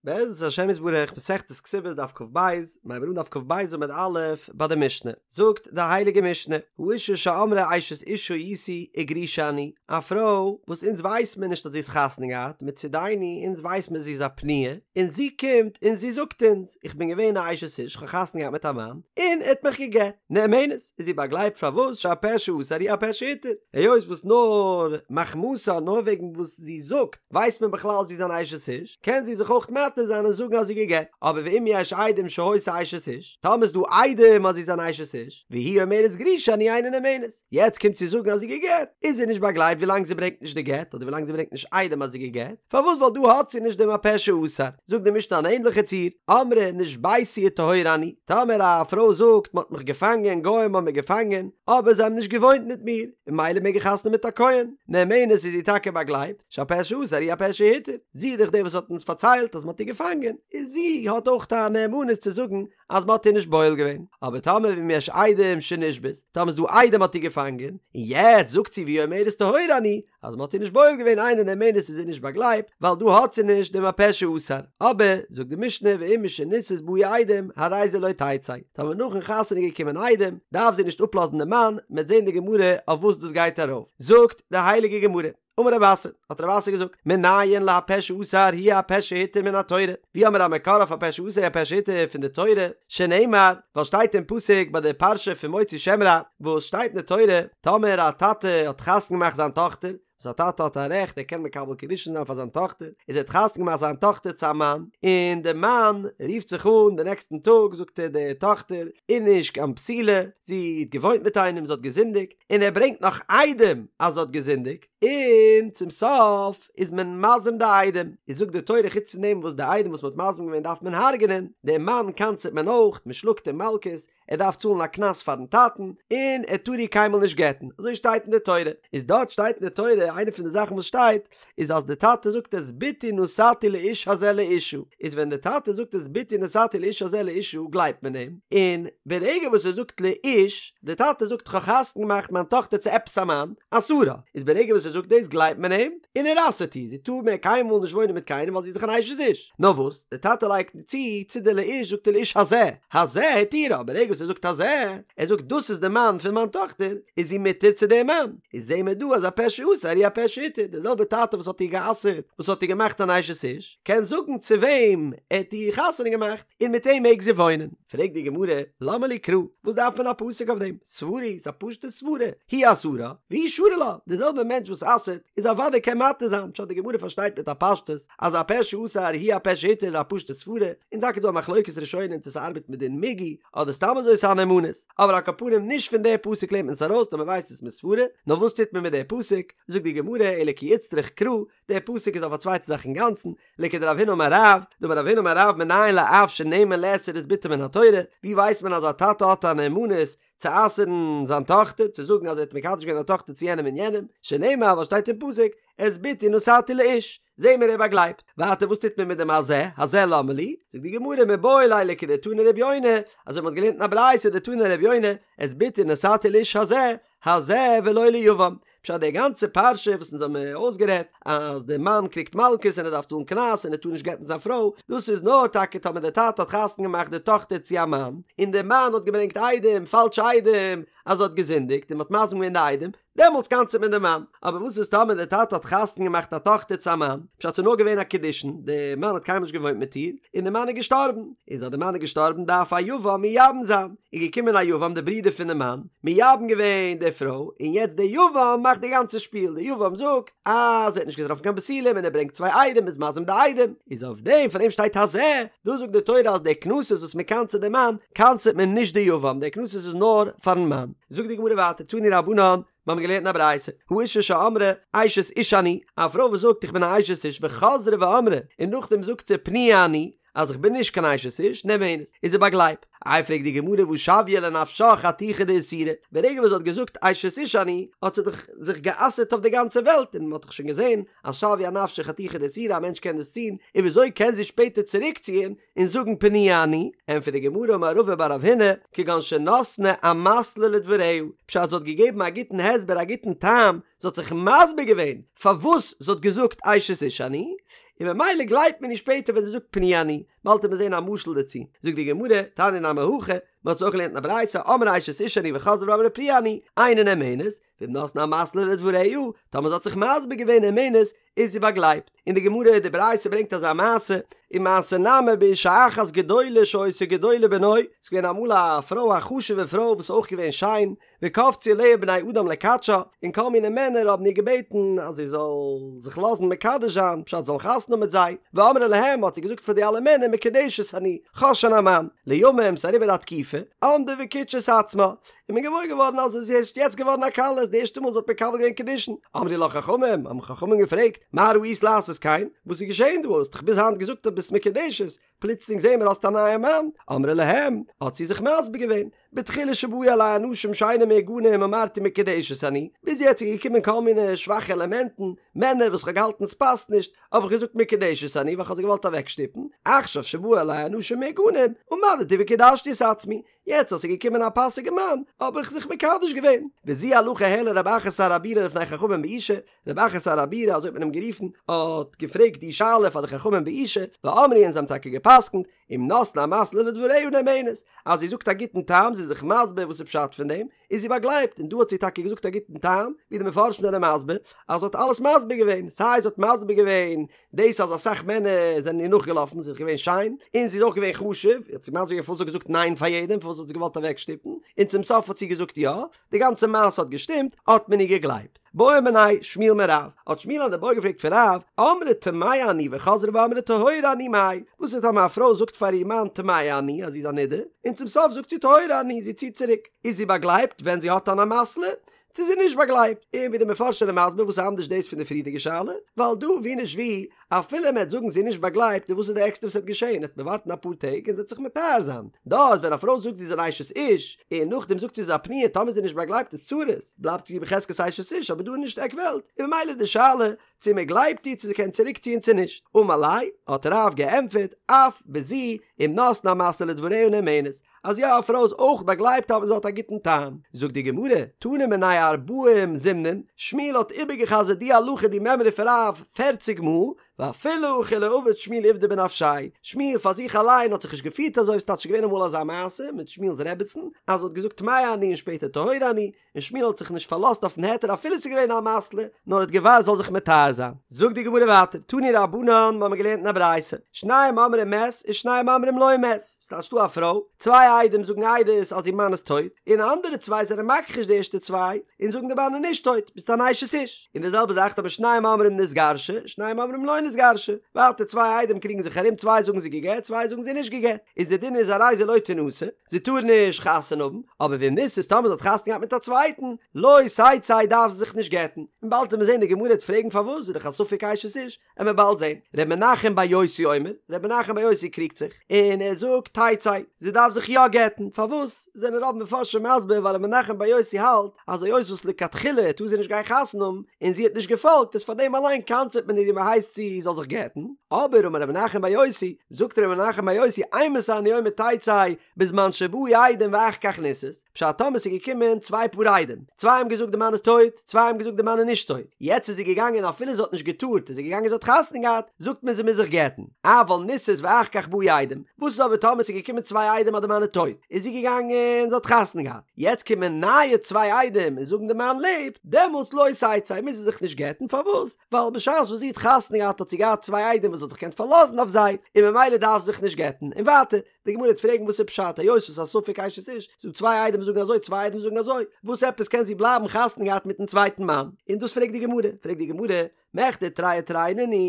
בעזרת השם יתברך, מסכת כתובות דף כ"ב, מיר הייבן אן דף כ"ב עמוד א' ביי די משנה, זאגט די הייליגע משנה, האשה שאמרה אשת איש הייתי וגרושה אני, א פרוי וואס אונז ווייס מיר נישט אז זי איז חתונה געהאט, מצידינו אונז ווייס מיר זי איז א פנויה, און זי קומט און זי זאגט אונז, איך בין געווען א אשת איש, כ'האב חתונה געהאט מיט א מאן, און ער האט מיך גע'גט, נאמנת, איז זי באגלייבט פארוואס שהפה שאסר הוא הפה שהתיר, היות וואס נאר מחמתה נאר וועגן וואס זי זאגט, ווייסט מען בכלל זי איז אן אשת איש, קען זי זיך אויך מתיר זיין און זאגן אז זי גע'גט, אבער ואם יש עדים שהיתה אשת איש, טאמער איז דא עדים אז זי איז אן אשת איש, והיא אומרת גרושה אני אינה נאמנת, יעצט קומט זי זאגן אז זי גע'גט, איז זי נישט באגלייבט ווילאנג זי ברענגט נישט די גט, אדער ווילאנג זי ברענגט נישט עדים אז זי גע'גט, פארוואס ווייל דא האט זי נישט דעם הפה שאסר, זאגט די משנה אן ענדליכע ציור, אמרה נשביתי וטהורה אני, טאמער א פרוי זאגט מען האט מיך געפאנגען, גוים האבן מיר געפאנגען, אבער זיי האבן נישט געוואוינט מיט מיר, און ממילא מעג איך חתונה מיט א כהן, נאמנת איז זי טאקע באגלייבט, שהפה שאסר הוא הפה שהתיר, זי איז דאך די וואס האט אונז פארציילט אז מען האט איר געפאנגען, איז זי האט אויך א נאמנות צו זאגן אז מען האט איר נישט בועל געווען, אבער טאמער ואם יש עדים שנשבית, טאמער איז דא עדים מ'האט איר געפאנגען, און יעצט זאגט זי והיא אומרת טהורה אני, אז מען האט איר נישט בועל געווען אינה נאמנת איז זי נישט באגלייבט, ווייל דא האט זי נישט דעם הפה שאסר, אבער, זאגט די משנה ואם משנישאת באו עדים, הרי זה לא תצא, טאמער נאכן חתונה איז געקומען עדים, דארף זי נישט אפלאזן דעם מאן, מ'עט זען די גמרא אויף וואס דאס גייט ארויף, זאגט די הייליגע גמרא, אמר רב אסי, האט רב אסי געזאגט, מנין להפה שאסר הוא הפה שהתיר מן התורה, ווי האמיר א מקור אויף הפה שאסר הוא הפה שהתיר פון די תורה, שנאמר, ווייל שטייט אין פסוק ביי די פרשה פון מוציא שם רע, וואס שטייט אין די תורה, טאמער א טאטע האט חתונה געמאכט זיין טאכטער, וואס א טאטע האט א רעכט ער קען מקבל קידושין זיין פאר זיין טאכטער, איז ער האט חתונה געמאכט זיין טאכטער צו א מאן, און די מאן רופט זיך אן די נעקסטן טאג זאגט ער די טאכטער איז נישט קיין בתולה, זי האט געוואוינט מיט איינעם זי האט געזינדיגט, און ער ברענגט נאך עדים אז זי האט געזינדיגט, און צום סוף איז מען מזים די עדים, איז זאגט די תורה חוץ פון דעם וואס די עדים וואס מען האט מזים געווען דארף מען הרג'נען, דעם מאן קנס'עט מען אויך, מען שלאגט אים מלקות, ער דארף צאלן א קנס פארן טאטן, און ער טאר איר קיינמאל נישט גט'ן, אזוי שטייט אין די תורה, איז דארט שטייט אין די תורה איינע פון די זאכן וואס שטייט, איז אז די טאטע זאגט את בתי נתתי לאיש הזה לאשה, איז ווען די טאטע זאגט את בתי נתתי לאיש הזה לאשה גלייבט מען אים, און ברגע וואס ער זאגט לאיש, די טאטע זאגט כ'האב חתונה געמאכט מיין טאכטער צו עפעס א מאן, אסרה, איז ברגע וואס ער זאגט דאס גלייבט מען אים, און ער אסר'ט איר, זי טאר מער קיינמאל נישט וואוינען מיט קיינעם ווייל זי איז דאך אן אשת איש. נאר וואס, די טאטע לייגט צו צו די לאיש זאגט ער לאיש הזה, הזה התירה, ברגע וואס ער זאגט הזה, ער זאגט דאס איז די מאן פון מיין טאכטער, איז זי מותר צו דעם מאן, איז זעהן מיר דא אז הפה שאסר הוא הפה שהתיר, דער זעלבער טאטע וואס האט איר גע'אסר'ט, וואס האט איר געמאכט אן אשת איש, קען זאגן צו וועם ער האט איר חתונה געמאכט, און מיט אים מעג זי וואוינען. פרעגט די גמרא, למה לי קרא, וואס דארף מען א פסוק אויף דעם? סברא היא, ס'איז א פשוטע סברא, הוא אסרה, והוא שרי לה, דער זעלבער מענטש וואס אסר'ט, איז אוודאי קען מתיר זיין, פשט די גמרא פארשטייט מיט א פשטות, אז הפה שאסר הוא הפה שהתיר איז א פשוטע סברא, און טאקע דא א מחלוקת ראשונים צו ס'ארבעט מיט דין מיגו, אדער סתם אזוי ס'איז א נאמנות, אבער על כל פנים נישט פון די פסוק לערנט מען עס ארויס נאר מ'ווייסט עס מסברא, נאר וואס טוט מען מיט די פסוק? זאגט די גמרא אלא כי איצטריך קרא, די פסוק איז אויף א צווייטע זאך אינגאנצן, לכדרב הונא אמר רב, דאמר רב הונא אמר רב מנין לאב שנאמן לאסור את בתו מן התורה, ווי ווייסט מען אז א טאטע האט א נאמנות צו אסר'ן זיין טאכטער, צו זאגן אז ער האט מקדש געווען זיין טאכטער צו יענעם און יענעם, שנאמר וואס שטייט אין פסוק, את בתי נתתי לאיש, זעהן מיר ער באגלייבט. ווייטער וואס טוט מען מיט דעם הזה, הזה למה לי? זאגט די גמרא מיבעי ליה לכדתני רבי יונה, אזוי מ'האט געלערנט אין א ברייתא דתני רבי יונה, את בתי נתתי לאיש הזה, הזה ולא ליבם. פשט די גאנצע פרשה וואס אונז האבן אויסגערעדט אז די מאן קריגט מלקות און ער דארף צאלן קנס און ער טאר נישט גט'ן זיין פרוי, דאס איז נאר טאקע טאמער די טאטע האט חתונה געמאכט די טאכטער צו א מאן, און די מאן האט געברענגט עדים, פאלשע עדים, אז זי האט געזינדיגט און מ'האט מזים געווען די עדים, דעמאלטס קנס'עט מען די מאן. אבער וואס איז טאמער די טאטע האט חתונה געמאכט א טאכטער צו א מאן, פשט ס'איז נאר געווען א קידושין, די מאן האט קיינמאל נישט געוואוינט מיט איר, און די מאן איז געשטארבן, איז אז די מאן איז געשטארבן דארף א יבם מייבם זיין, איז געקומען א יבם די ברודער פון די מאן, מייבם געווען די פרוי, און יעצט די יבם מאכט די גאנצע שפיל, די יבם זאגט אז ער האט נישט געטראפן קיין בתולים און ער ברענגט צוויי עדים איז מזים די עדים, איז אויף דעם פון דעם שטייט הזה, דא זאגט די תורה אז די קנסות וואס מען קנס'עט די מאן, קנס'עט מען נישט די יבם, די קנסות איז נאר פארן מאן. זאגט די גמרא ווייטער תנו רבנן, מיר האבן געלערנט אין א ברייתא, האשה שאמרה אשת איש אני, א פרוי וואס זאגט איך בין א אשת איש וחזרה ואמרה, און נאכדעם זאגט זי פנויה אני, אז איך בין נישט קיין אשת איש, נאמנת, איז זי באגלייבט. איי פרעגט די גמרא והא שויה לנפשה חתיכה דאיסורא, ברגע וואס זי האט געזאגט אשת איש אני, האט זי דאך זיך גע'אסר'ט אויף די גאנצע וועלט, און מען האט דאך שוין געזען אז שויה אנפשה חתיכה דאיסורא א מענטש קען דאס טון, און וויאזוי קען זי שפעטער צוריקציען און זאגן פנויה אני, ענטפערט די גמרא אמר רבא בר רב הונא, כגון שנתנה אמתלא לדבריה, פשט זי האט געגעבן א גוטן הסבר א גוטן טעם, זי האט זיך מסביר געווען פארוואס זי האט געזאגט אשת איש אני, און ממילא גלייבט מען איר שפעטער ווען זי זאגט פנויה אני, באלד וועט מען זען א משל דערצו, זאגט די גמרא, תניא נמי הכי, מען האט עס אויך געלערנט אין א ברייתא, אמרה אשת איש אני וחזרה ואמרה פנויה אני, אינה נאמנת, ואם נתנה אמתלא לדבריה, טאמער זי האט זיך מסביר געווען נאמנת, איז זי באגלייבט. און די גמרא, די ברייתא ברענגט אזא מעשה, ומעשה נמי באשה אחת גדולה שהיתה גדולה בנוי, ס'איז געווען אמאל א פרוי א חשוב'ע פרוי וואס איז אויך געווען שיין, וקפצו עליה בני אדם לקדשה, און כל מיני מענער האבן איר געבעטן אז זי זאל זיך לאזן מקדש זיין, פשט זאל חתונה האבן מיט זיי, ואמרה להם האט זי געזאגט פאר די אלע מענער מקודשת אני, כ'האב שוין א מאן, לימים ס'איז אריבער א תקופה, עמדה וקידשה את עצמה, איז מען געוואויר געווארן אז זי איז ערשט יעצט געווארן א כלה, ס'איז די ערשטע מאל זי האט מקבל געווען קידושין, אמרו לה חכמים, האבן חכמים געפרעגט, מה ראית לעשות כן, וואס איז געשען דא, האסט דאך ביז היינט געזאגט אז ביסט מקודשת, פלוצלינג זעהן מיר האסט א נייע מאן, אמרה להם, האט זי זיך מסביר געווען, בתחילה שבאו עלי אנשים שאינם מהוגנים אמרתי מקודשת אני, ביז יעצט איז געקומען כל מיני שוואכע עלעמענטן, מענער וואס כ'האב געהאלטן ס'פאסט נישט, האב איך געזאגט מקודשת אני ווייל כ'האב זיי געוואלט אוועקשטופן, עכשיו שבאו עלי אנשים מהוגנים, עמדתי וקידשתי את עצמי, יעצט אז ס'איז געקומען א פאסיגע מאן, האב איך זיך מקדש געווען. וזו הלכה העלה רב אחא שר הבירה לפני חכמים באושא, רב אחא שר הבירה, אזוי האט מען אים גערופן, האט געפרעגט די שאלה פאר די חכמים באושא, ואמרו און זיי האבן טאקע גע'פסק'נט, אם נתנה אמתלא לדבריה נאמנת, אז זי זאגט א גוטן טעם, זי איז זיך מסביר וואס איז פשט פון דעם, איז זי באגלייבט, און דא האט זי טאקע געזאגט א גוטן טעם, ווי די מפרשים זענען מסביר, אז זי האט אלעס מסביר געווען, סיי זי האט מסביר געווען דאס אז אסאך מענער זענען איר נאכגעלאפן, זי איז געווען שיין, און זי איז אויך געווען חשוב, האט זי מסביר געווען פארוואס זי האט געזאגט ניין פאר יעדעם, פארוואס האט זי געוואלט אוועקשטופן, און צום סוף האט זי געזאגט יא, די גאנצע מעשה האט געשטימט, האט מען איר געגלייבט. בעא מיניה שמואל מרב, האט שמואל אן איבעיא געפרעגט פון רב, אמרה טמאה אני וחזרה ואמרה טהורה אני מאי, וואס איז טאמער א פרוי זאגט פאר איר מאן טמאה אני אז זי איז א נדה, און צום סוף זאגט זי טהורה אני, זי ציט צוריק, איז זי באגלייבט ווען זי האט אן אמתלא, צו זי איז נישט באגלייבט, און ווי די מפרשים זענען מסביר וואס איז אנדערש דאס פון די פריערדיגע שאלה, ווייל דא ווי נישט ווי, אפילו מען וועט זאגן זי איז נישט באגלייבט, און וואס איז די ערגסטע וואס וועט געשען, וועט מען ווארטן אפאר טעג און זי וועט זיך מטהר זיין, דארט ווען א פרוי זאגט זי איז אן אשת איש, און נאכדעם זאגט זי זי איז א פנויה, טאמער זי איז נישט באגלייבט איז צרות, בלייבט זי בחזקת אשת איש, אבער דא איז נישט עק וועלט, און ממילא די שאלה צו מען גלייבט איר צו זי קען צוריק ציען צו נישט, אמר ליה, האט רב געענטפערט, אף בזו, אם נתנה אמתלא לדבריה נאמנת, אז יא א פרוי איז אויך באגלייבט אויב זי האט א גוטן טעם. זאגט די גמרא, תנא מיניה ארבעים זימנין, שמואל האט איבערגע'חזר'ט די הלכה די מימרא פון רב פערציג מאל, ואפילו הכי לא עביד שמואל עובדא בנפשיה, שמואל פאר זיך אליין האט זיך נישט געפירט אזוי, ס'טייטש ס'איז געווען אמאל אזא מעשה מיט שמואל'ס רעבעצן אז זי האט געזאגט טמאה אני און שפעטער טהורה אני, און שמואל האט זיך נישט פארלאזט אויפן היתר אפילו ס'איז געווען אן אמתלא, נאר האט געווארט זאל זיך מטהר זיין. זאגט די גמרא ווייטער, תנו רבנן, מ'האמיר געלערנט אין א ברייתא, שניים אומרים מת ושניים אומרים לא מת, ס'טייטש דא א פרוי, צוויי עדים זאגן עדות אז איר מאן איז טויט, און אנדערע צוויי זענען מכחיש די ערשטע צוויי, און זאגן די מאן איז נישט טויט, ביסט אן אשת איש. און די זעלבע זאך טאמער שניים אומרים נתגרשה, שניים אומרים לא נתגרשה, ווייטער צוויי עדים קריגן זיך ארום, צוויי זאגן זי גע'גט, צוויי זאגן זי נישט גע'גט, איז די דין איז הרי זו לא תנשא, זי טאר נישט חתונה האבן, אבער ואם נישאת טאמער זי האט חתונה געהאט מיט א צווייטן, לא תצא דארף זי זיך נישט גט'ן, און באלד וועט מען זען די גמרא וועט פרעגן פארוואס איז דאך א ספק אשת איש, עמיר באלד זען, ר' מנחם בר יוסי אומר, ר' מנחם בר יוסי קריגט זיך, און ער זאגט תצא, זי דארף זיך יא גט'ן, פארוואס זענען רוב מפרשים מסביר ווייל ר' מנחם בר יוסי האלט אז היות וואס לכתחילה טאר זי נישט גיין חתונה האבן, און זי האט נישט געפאלגט איז פאר דעם אליין קנס'עט מען איר און מען הייסט זי זאל זיך גט'ן, אבער אמר ר' מנחם בר יוסי, זאגט ר' מנחם בר יוסי אימתי אני אומר תצא בזמן שבאו עדים ואחר כך נישאת, פשט טאמער ס'איז געקומען צוויי פאר עדים, צוויי האבן געזאגט די מאן איז טויט, צוויי האבן געזאגט די מאן איז נישט טויט, יעצט איז זי געגאנגען אפילו זי האט נישט געטארט איז זי געגאנגען זי האט חתונה געהאט, זאגט מען זי מוז זיך גט'ן, אבל נישאת ואחר כך באו עדים, וואס איז אבער טאמער ס'איז געקומען צוויי עדים אז די מאן איז טויט, איז זי געגאנגען זי האט חתונה געהאט, יעצט קומען נייע צוויי עדים און זאגן די מאן לעבט, דעמאלטס לא תצא מוז זי זיך נישט גט'ן, פארוואס? ווייל בשעת וואס זי האט חתונה געהאט האט זי געהאט צוויי עדים וואס זי האט זיך געקענט פארלאזן אויף זיי, און ממילא דארף זי זיך נישט גט'ן, און ווייטער, די גמרא וועט פרעגן וואס איז פשט היות וואס א ספק אשת איש, ס'דא צוויי עדים וואס זאגן אזוי צוויי עדים זאגן אזוי, וואס עפעס קען זי בלייבן חתונה געהאט מיטן צווייטן מאן, און דאס פרעגט די גמרא, פרעגט די גמרא, מכדי תרי ותרי נינהו,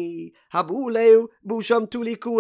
הבא עליה באשם תלוי קאי,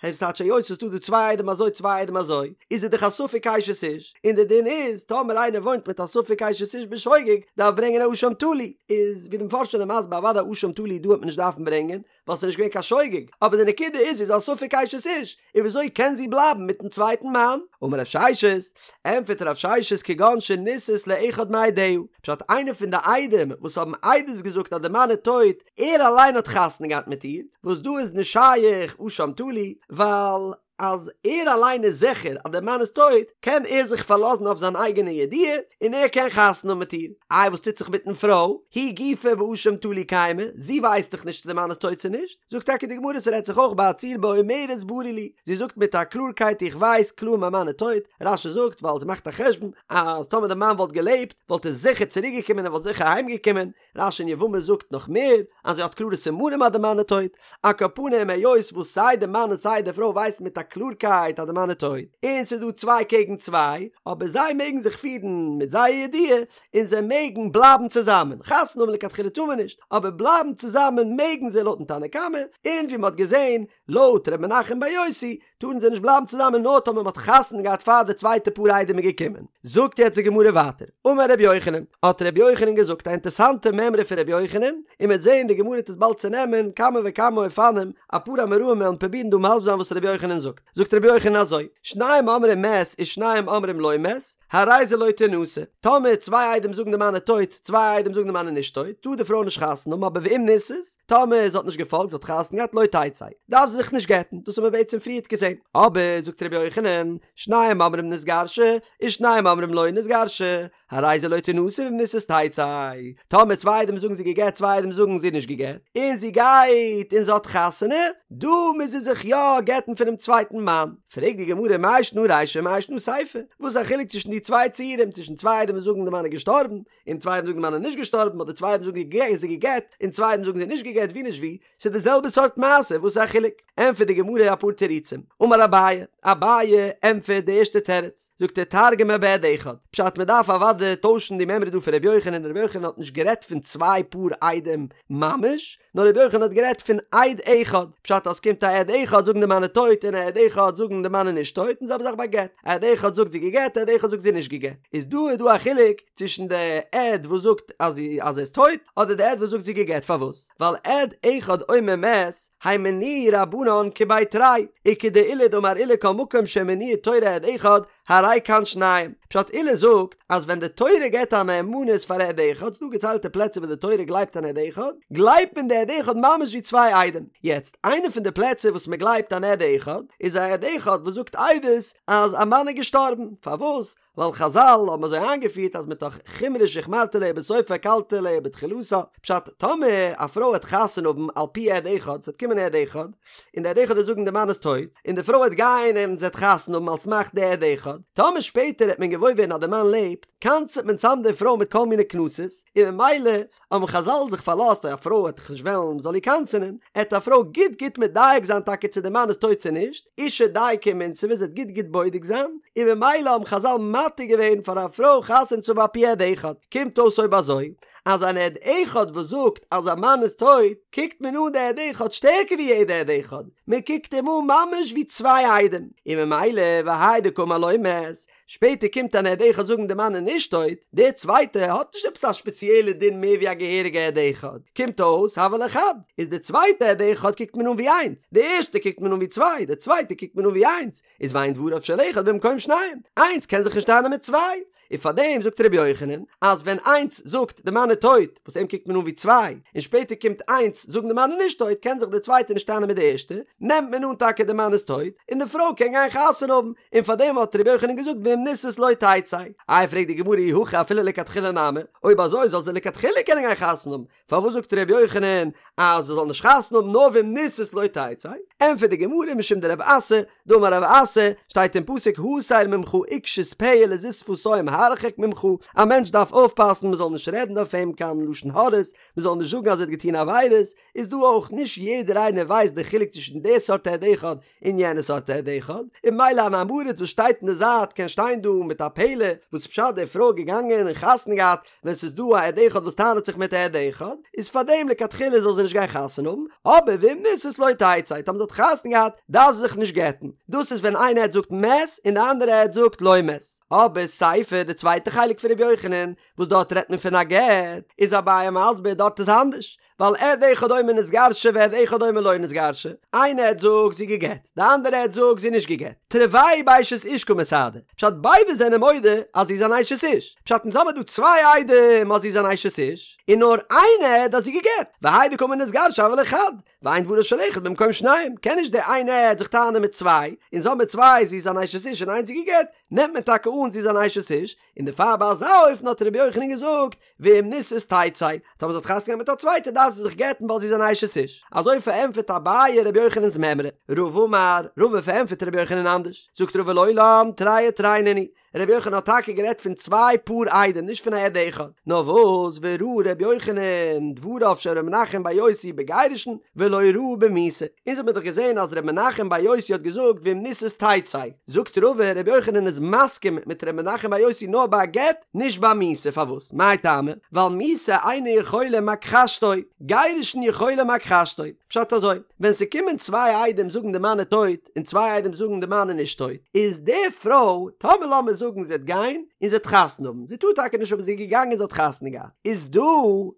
הייסט טייטש היות ס'איז דא דא צוויי עדים אזוי צוויי עדים אזוי, איז ער דאך א ספק אשת איש, און די דין איז טאמער איינער וואוינט מיט א ספק אשת איש בשוגג דארף ברענגען א אשם תלוי, איז ווי די מפרשים זענען מסביר אוודאי אשם תלוי דא וועט מען נישט דארפן ברענגען, ווייל ס'איז נישט געווען קיין שוגג, אבער די נקודה איז זי איז א ספק אשת איש, און וויאזוי קען זי בלייבן מיטן צווייטן מאן? אמר רב ששת, ענטפערט רב ששת כגון שנישאת לאחד מעדיה, פשט איינער פון די עדים וואס האבן עדות געזאגט אז די מאן איז טויט, ער אליין האט חתונה געהאט מיט איר, וואס דא איז נישט שייך אשם תלוי, ווייל. אז ער אליין איז זיכער אז דער מאן איז טויט, קען ער זיך פארלאזן אויף זיין אייגענע ידיעה און ער קען חתונה האבן מיט איר. איי וואס טוט זיך מיטן פרוי? היא גופה באשם תלוי קיימא, זי ווייסט דאך נישט צו דער מאן איז טויט צו נישט. זאגט טאקע די גמרא ס'רעדט זיך אויך ביי א ציור באומרת ברור לי, זי זאגט מיט א קלארקייט איך ווייס קלאר מיין מאן איז טויט, רש"י זאגט ווייל זי מאכט א חשבון אז טאמער די מאן וואלט געלעבט וואלט ער זיכער צוריק געקומען און וואלט זיכער אהיים געקומען, רש"י אין יבמות זאגט נאך מער אז זי האט קלארע סימנים אז די מאן איז טויט, על כל פנים היות וואס סיי די מאן און סיי די פרוי ווייסן מיט א קלארקייט אז די מאן איז טויט, און ס'איז דא צוויי קעגן צוויי, אבער זיי מעגן זיך פירן מיט זייער ידיעה, און זיי מעגן בלייבן צוזאמען, חתונה האבן לכתחילה טאר מען נישט, אבער בלייבן צוזאמען מעגן זיי לויטן תנא קמא, און ווי מען האט געזען לויט ר' מנחם בר יוסי, טארן זיי נישט בלייבן צוזאמען נאר טאמער מען האט חתונה געהאט פאר די צווייטע פאר עדים איז געקומען. זאגט יעצט די גמרא ווייטער, אמר ר' יוחנן, האט ר' יוחנן געזאגט א אינטערסאנטע מימרא פון ר' יוחנן, און מען וועט זען די גמרא וועט עס באלד צונעמען כמה וכמה אופנים, אפאר אמוראים וועלן פרובירן דא מסביר זיין וואס ר' יוחנן זאגט. זאגט ר' יוחנן אזוי, שניים אומרים מת ושניים אומרים לא מת, הרי זה לא תנשא, טאמער צוויי עדים זאגן די מאן איז טויט, צוויי עדים זאגן די מאן איז נישט טויט, טאר די פרוי נישט חתונה האבן, אבער ואם נישאת, טאמער זי האט נישט געפאלגט, זי האט חתונה געהאט, לא תצא, דארף זי זיך נישט גט'ן, דאס האבן מיר בעצם פריערט געזען. אבער, זאגט ר' יוחנן, שניים אומרים נתגרשה, ושניים אומרים לא נתגרשה, הרי זה לא תנשא ואם נישאת תצא, טאמער צוויי עדים זאגן זי גע'גט צוויי עדים זאגן זי נישט גע'גט, און זי גייט און זי האט חתונה, דא מוז זי זיך יא גט'ן פונעם צווייטן מאן. פרעגט די גמרא מאי שנא רישא מאי שנא סיפא, וואס איז א חילוק צווישן די צוויי ציורים, צווישן צוויי עדים וואס זאגן די מאן איז געשטארבן, און צוויי עדים זאגן די מאן איז נישט געשטארבן, אדער צוויי עדים זאגן זי גע'גט, און צוויי עדים זאגן זי נישט גע'גט, ווי נישט ווי, ס'איז די זעלבע סארט מעשה, וואס איז א חילוק? ענטפערט די גמרא אפאר תירוצים, אמר אביי, אביי ענטפערט די ערשטע תירוץ, זאגט ער תרגמה בעד אחד, פשט מען דארף אוודאי טוישן די מימרא דא פון ר' יוחנן, ר' יוחנן האט נישט גערעדט פון צוויי פאר עדים ממש, נאר ר' יוחנן האט גערעדט פון עד אחד, פשט אז ס'קומט א עד אחד זאגן די מאן איז טויט און א עד אחד זאגן די מאן איז נישט טויט, און זעלבע זאך ביי גט, א עד אחד זאגט זי גע'גט, א עד אחד זאגט זי נישט גע'גט, איז דא איז דא א חילוק צווישן די עד וואס זאגט אז אז ער איז טויט אדער די עד וואס זאגט זי גע'גט, פארוואס? ווייל עד אחד אומר מת, הימנוהו רבנן כבי תרי, וכדעולא דאמר עולא כל מקום שהאמינו תורה עד אחד, הרי כאן שניים. פשט עולא זאגט אז ווען די תורה געבט א נאמנות פאר עד אחד, ס'דא געציילטע פלעצער וואס די תורה גלייבט אן עד אחד, גלייבט מען די עד אחד ממש ווי צוויי עדים. יעצט, איינע פון די פלעצער וואס מען גלייבט אן עד אחד, איז א עד אחד וואס זאגט עדות אז א מאן איז געשטארבן. פארוואס? ווייל חזל האבן אזוי איינגעפירט אז מתוך חומרא שהחמרת עליה בסופה הקלת עליה בתחילתה, פשט, טאמער א פרוי וועט חתונה האבן על פי עד אחד, ס'וועט קומען עד אחד, און די עד אחד וועט זאגן די מאן איז טויט, און די פרוי וועט גיין און זי וועט חתונה האבן על סמך די עד אחד, טאמער שפעטער וועט מען געוואויר ווערן אז די מאן לעבט, קנס'עט מען צאם די פרוי מיט כל מיני קנסות, און ממילא האבן חזל זיך פארלאזט אז א פרוי וועט דאך נישט וועלן מ'זאל איר קנס'ענען, עט א פרוי גוט גוט מדייק זיין טאקע צו די מאן איז טויט צו נישט, אשה דייקא ומינסבא זי וועט גוט גוט בודק זיין, און ממילא האבן חזל מתיר געווען פאר א פרוי חתונה צו האבן על פי עד אחד, קומט אויס אויב אזוי אז אן עד אחד וואס זאגט אז א מאן איז טויט, קוקט מען אן די עד אחד שטערקער ווי יעדע עד אחד, מען קוקט אים אן ממש ווי צוויי עדים, און ממילא והאי דקאמר לא מת, שפעטער קומט אן עד אחד זאגן די מאן איז נישט טויט, דער צווייטע האט נישט עפעס א שפעציעלע דין מער ווי א געהעריגע עד אחד, קומט אויס הוה ליה חד, איז די צווייטע עד אחד קוקט מען אן ווי איינס, די ערשטע קוקט מען אן ווי צוויי, די צווייטע קוקט מען אן ווי איינס, איז ואין דבריו של אחד במקום שניים, איינס קען זיך נישט טענה'ן מיט צוויי, און פארדעם זאגט רבי יוחנן אז ווען איינס זאגט די מאן איז טויט, וואס אים קוקט מען אן ווי צוויי, און שפעטער קומט איינס זאגן די מאן איז נישט טויט קען זיך די צווייטע נישט טענה'ן מיט די ערשטע, נעמט מען אן טאקע די מאן איז טויט, און די פרוי קען גיין חתונה האבן, און פארדעם האט רבי יוחנן געזאגט ואם נישאת לא תצא. איי פרעגט די גמרא אי הכי אפילו לכתחילה נמי, אויב אזוי זאל זי לכתחילה קענען גיין חתונה האבן, פארוואס זאגט רבי יוחנן אז זי זאל נישט חתונה האבן נאר ואם נישאת לא תצא? ענטפערט די גמרא משום דרב אסי, דאמר רב אסי, שטייט אין פסוק הסר ממך עקשות פה ולזות שפתים הרחק ממך, א מענטש דארף אויפפאסן מען זאל נישט רעדן אויף אים קיין לשון הרע'ס, מען זאל נישט זאגן אז ער האט געטון עבירות, איז דא אויך נישט יעדער איינער ווייסט די חילוק צווישן די סארט עד אחד און יענע סארט עד אחד, און ממילא אן עם הארץ וואס שטייט אין די זייט קען שטיין דא מיט א פלא וואס פשט די פרוי איז געגאנגען און חתונה געהאט ווען ס'איז דא א עד אחד וואס טענה'ט זיך מיט א עד אחד, איז פארדעם לכתחילה זאל זי נישט גיין חתונה האבן, אבער ואם נישאת לא תצא, טאמער זי האט חתונה געהאט דארף זי זיך נישט גט'ן, דאס איז ווען איין עד זאגט מת און די אנדערע עד זאגט לא מת. אבער סיפא, די צווייטע חלק פון ר' יוחנן, וואס דארט רעדט מען פון א גט, איז אביי מסביר דארט איז אנדערש, ווייל עד אחד אומר נתגרשה ועד אחד אומר לא נתגרשה, איין עד זאגט זי גע'גט, די אנדערע עד זאגט זי נישט גע'גט, תרוייהו באשת איש קא מסהדי, פשט ביידע זענען מודה אז זי איז אן אשת איש, פשט אונז האמיר דא צוויי עדים אז זי איז אן אשת איש, און נאר איין עד אז זי גע'גט, והאי דקאמר נתגרשה הוה ליה חד, ואין דברו של אחד במקום שניים, קען נישט די איין עד זיך טענה'ן מיט צוויי, אונז האמיר צוויי זי איז אן אשת איש און איינס זי גע'גט, נעמט מען טאקע אן זי איז אן אשת איש, און דערפאר ביי אזא אופן האט רבי יוחנן געזאגט, ואם נישאת תצא, טאמער זי האט חתונה געהאט מיט א צווייטער דארף זי זיך גט'ן ווייל זי איז אן אשת איש. אזוי פארענטפערט אביי רבי יוחנן'ס מימרא. רבא אמר, רבא פארענטפערט רבי יוחנן אנדערש. זאגט רבא לעולם תרי ותרי נינהו. רבי יוחנן האט טאקע גערעדט פון צוויי פאר עדים נישט פון א עד אחד. נאר וואס וראה רבי יוחנן דבריו של ר' מנחם בר יוסי בגירושין ולא ראה במיתה. אונז האט מען דאך געזען אז ר' מנחם בר יוסי האט געזאגט ואם נישאת תצא. זאגט רבא רבי יוחנן איז מסכים מיט ר' מנחם בר יוסי נאר ביי א גט, נישט ביי מיתה, פארוואס? מאי טעמא? ווייל מיתה אינה יכולה מכחשתו, גירושין יכולה מכחשתו. פשט אזוי, ווען ס'קומען צוויי עדים זאגן די מאן איז טויט, און צוויי עדים זאגן די מאן איז נישט טויט, איז די פרוי, טאמער לאמיר זאגן זי וועט גיין, און זי וועט חתונה האבן, זי טאר טאקע נישט אבער זי איז געגאנגען און זי האט חתונה געהאט, איז דא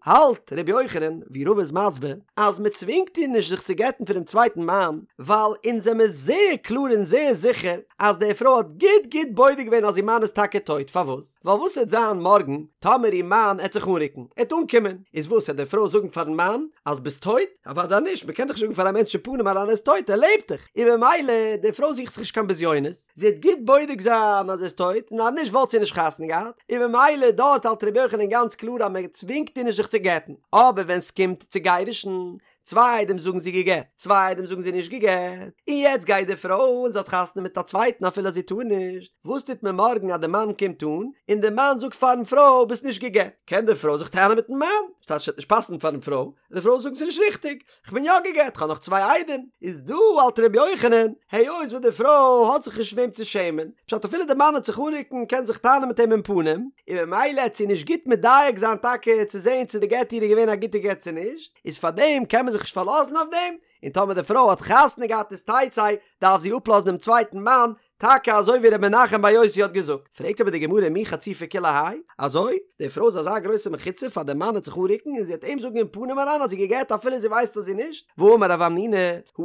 האלט ר' יוחנן, ווי רבא איז מסביר, אז מ'צווינגט איר נישט זיך צו גט'ן פונעם צווייטן מאן, ווייל אונז זעמיר זייער קלאר און זייער זיכער אז די פרוי האט גוט גוט בודק געווען אז איר מאן איז טאקע טויט, פארוואס? ווייל וואס העט זיין מארגן טאמער איר מאן העט זיך אנרוקן, ער העט אנקומען, איז וואס העט די פרוי זאגן פארן מאן אז ביסט טויט? אוודאי נישט, מען קען דאך נישט זאגן פאר א מענטש אין פנים אריין ער איז טויט, ער לעבט דאך, און ממילא די פרוי זוכט זיך נישט קיין בזיונות, זי העט גוט בודק זיין אז ער איז טויט, און אז נישט וואלט זי נישט חתונה געהאט, און ממילא דארט האלט רבי יוחנן גאנץ קלאר אז מען צווינגט איר נישט זיך צו גט'ן, אבער ווען סקומט צו גירושין, צוויי עדים זאגן זי געגעט, צוויי עדים זאגן זי נישט געגעט, און יעצט גייט די פרוי און זי האט חתונה מיט א צווייטן אפילו אז זי טאר נישט, וואס טוט מען מארגן אז די מאן קומט אן, און די מאן זאגט פארן פרוי ביסט נישט געגעט, קען די פרוי זיך טענה'ן מיטן מאן, ס'טייטש ס'וועט נישט פאסן פארן פרוי, די פרוי זאגן ס'איז נישט ריכטיג, כ'בין יא געגעט, כ'האב נאך צוויי עדים, איז דא האלט ר' יוחנן, היות וואס די פרוי האט זיך נישט וועם צו שעמען, פשט אפילו די מאן וועט זיך אנרוקן קען זיך טענה'ן מיט אים אין פנים, און ממילא העט זי נישט גוט מדייק זיין טאקע צו זעהן צו די גט איר איז געווען א גוטע גט צו נישט, איז פארדעם קען מען זיך נישט פארלאזן אויף דעם, און טאמער די פרוי האט חתונה געהאט איז תצא, דארף זי אפלאזן דעם צווייטן מאן, טאקע אזוי ווי ר' מנחם בר יוסי האט געזאגט. פרעגט אבער די גמרא מי חציפה כולי האי, אזוי? די פרוי איז אזא גרויסע מחוצף אז דער מאן העט זיך אנרוקן און זי העט אים זאגן אין פנים אריין אז זי געגעט אפילו זי ווייסט אז זי נישט, והאמר רב המנונא,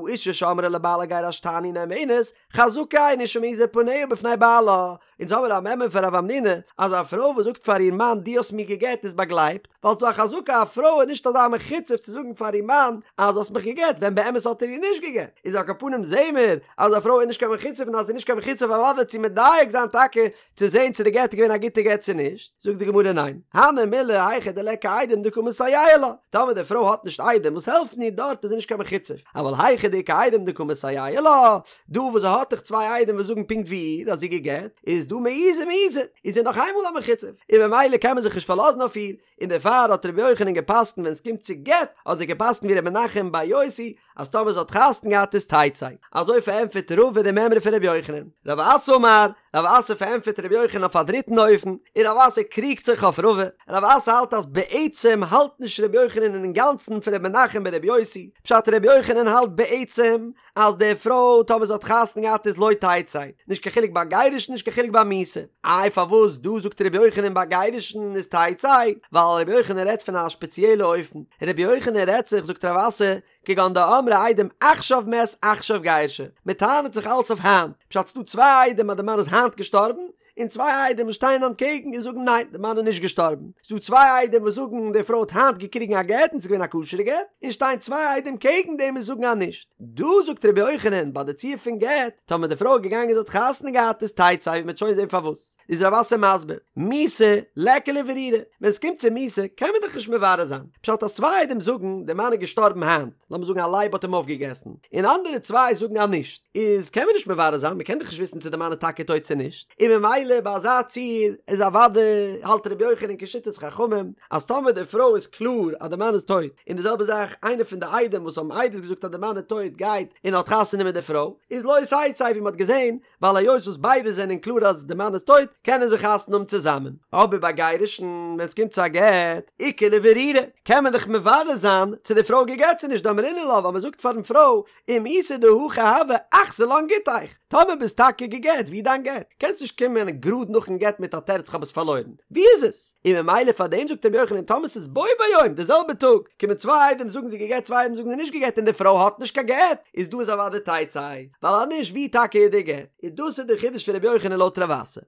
האשה שאמרה לבעלה גירשתני נאמנת, חזקה אין אשה מעיזה פניה בפני בעלה, אונז האמיר א מימרא פון רב המנונא אז א פרוי וואס זאגט פאר איר מאן דו האסט מיר געגעט איז באגלייבט, ווייל ס'דא א חזקה א פרוי איז נישט אזא מחוצף צו זאגן פאר איר מאן אז האסט מיך געגעט ווען באמת האט ער איר נישט געגעט, איז על כל פנים זעהן מיר אז א פרוי איז נישט קיין מחוצף און אז זי איז נישט קיין מחוצף אוודאי צו מדייק זיין טאקע צו זעהן צו די גט איז געווען א גוטע גט צו נישט, זאגט די גמרא ניין, הני מילי היכא דליכא עדים דקא מסייעי לה, טאמער די פרוי האט נישט עדים וואס העלפן איר דארט איז זי נישט קיין מחוצף, אבל היכא דאיכא עדים דקא מסייעי לה, דא וואס זי האט דאך צוויי עדים וואס זאגן פונקט ווי איר אז זי געגעט, איז דא מעיזי מעיזי, איז זי נאך איינמאל א מחוצף, און ממילא קען מען זיך נישט פארלאזן אויף איר, און דערפאר האט רבי יוחנן געפסקנט ווען עס קומט צו גט, האט ער געפסקנט ווי רבי מנחם בר יוסי, אז טאמער זי האט חתונה געהאט איז תצא. אזוי פארענטפערט רבא די מימרא פון רבי יוחנן. רב אסי אמר, רב אסי פארענטפערט רבי יוחנן אויף א דריטן אופן, און רב אסי קריגט זיך אויף רבא, רב אסי האלט אז בעצם האלט נישט רבי יוחנן אינגאנצן פון רבי מנחם ברבי יוסי, פשט רבי יוחנן האלט בעצם אז די פרוי טאמער זי האט חתונה געהאט איז לא תצא, נישט קיין חילוק ביי גירושין נישט קיין חילוק ביי מיתה. איי פארוואס דא זאגט רבי יוחנן ביי גירושין איז תצא? ווייל רבי יוחנן רעדט פון א שפעציעלע אופן, רבי יוחנן רעדט זיך זאגט רב אסי, כגון דאמרי עדים עכשיו מת עכשיו גירשה, מען טענה'ט זיך אלץ אויף היינט, פשט ס'דא צוויי עדים אז די מאן איז היינט געשטארבן, און צוויי עדים וואס שטייען אנטקעגן און זאגן ניין די מאן איז נישט געשטארבן, ס'דא צוויי עדים וואס זאגן די פרוי האט היינט געקריגן א גט און ס'איז געווען א כשר'ע גט, און שטייען צוויי עדים קעגן דעם און זאגן אז נישט. דא זאגט רבי יוחנן ביי די ציור פון גט, טאמער די פרוי איז געגאנגען זי האט חתונה געהאט איז תצא ווי מ'וועט שוין זען פארוואס, איז רב אסי מסביר, מיתה ליכא לברורה, ווען ס'קומט צו מיתה קען מען דאך נישט מברר זיין, פשט אז צוויי עדים זאגן די מאן איז געשטארבן היינט, לאמיר זאגן א לייב האט אים אויפגעגעסן, און אנדערע צוויי זאגן אז נישט, איז קען מען נישט מברר זיין, מען קען דאך נישט וויסן צו די מאן איז טאקע טויט צו נישט, און ממילא ביי אזא ציור איז אוודאי האלט רבי יוחנן כשיטת חכמים אז טאמער די פרוי איז קלאר אז די מאן איז טויט, און די זעלבע זאך איינער פון די עדים וואס האבן עדות געזאגט אז די מאן איז טויט גייט און האט חתונה מיט די פרוי, איז לא תצא ווי מען האט געזען, ווייל היות וואס ביידע זענען קלאר אז די מאן איז טויט, קענען זיי חתונה האבן צוזאמען. אבער ביי גירושין, ווען עס קומט צו א גט, איכא לברורה, קען מען דאך מברר זיין צו די פרוי געגט צו נישט, דאמרינן לה, ווייל מען זאגט פארן פרוי, אם איתא דהכי הוה, אחזי לן גיטיך, טאמער ביסט טאקע געגט, ווי איז דיין גט? קענסט נישט קומען גראד נאכן גט מיט א תירוץ כ'האב עס פארלוירן. ווי איז עס? און ממילא פאר דעם זאגט רבי יוחנן טאמער ס'איז בו ביום די זעלבע טאג קומען צוויי עדים זאגן זי געגט צוויי עדים זאגן זי נישט געגט און די פרוי האט נישט קיין גט איז דא איז אוודאי תצא ווייל אז נישט ווי טאקע איז די גט? און דאס איז די חידוש פון רבי יוחנן לויט רב אסי.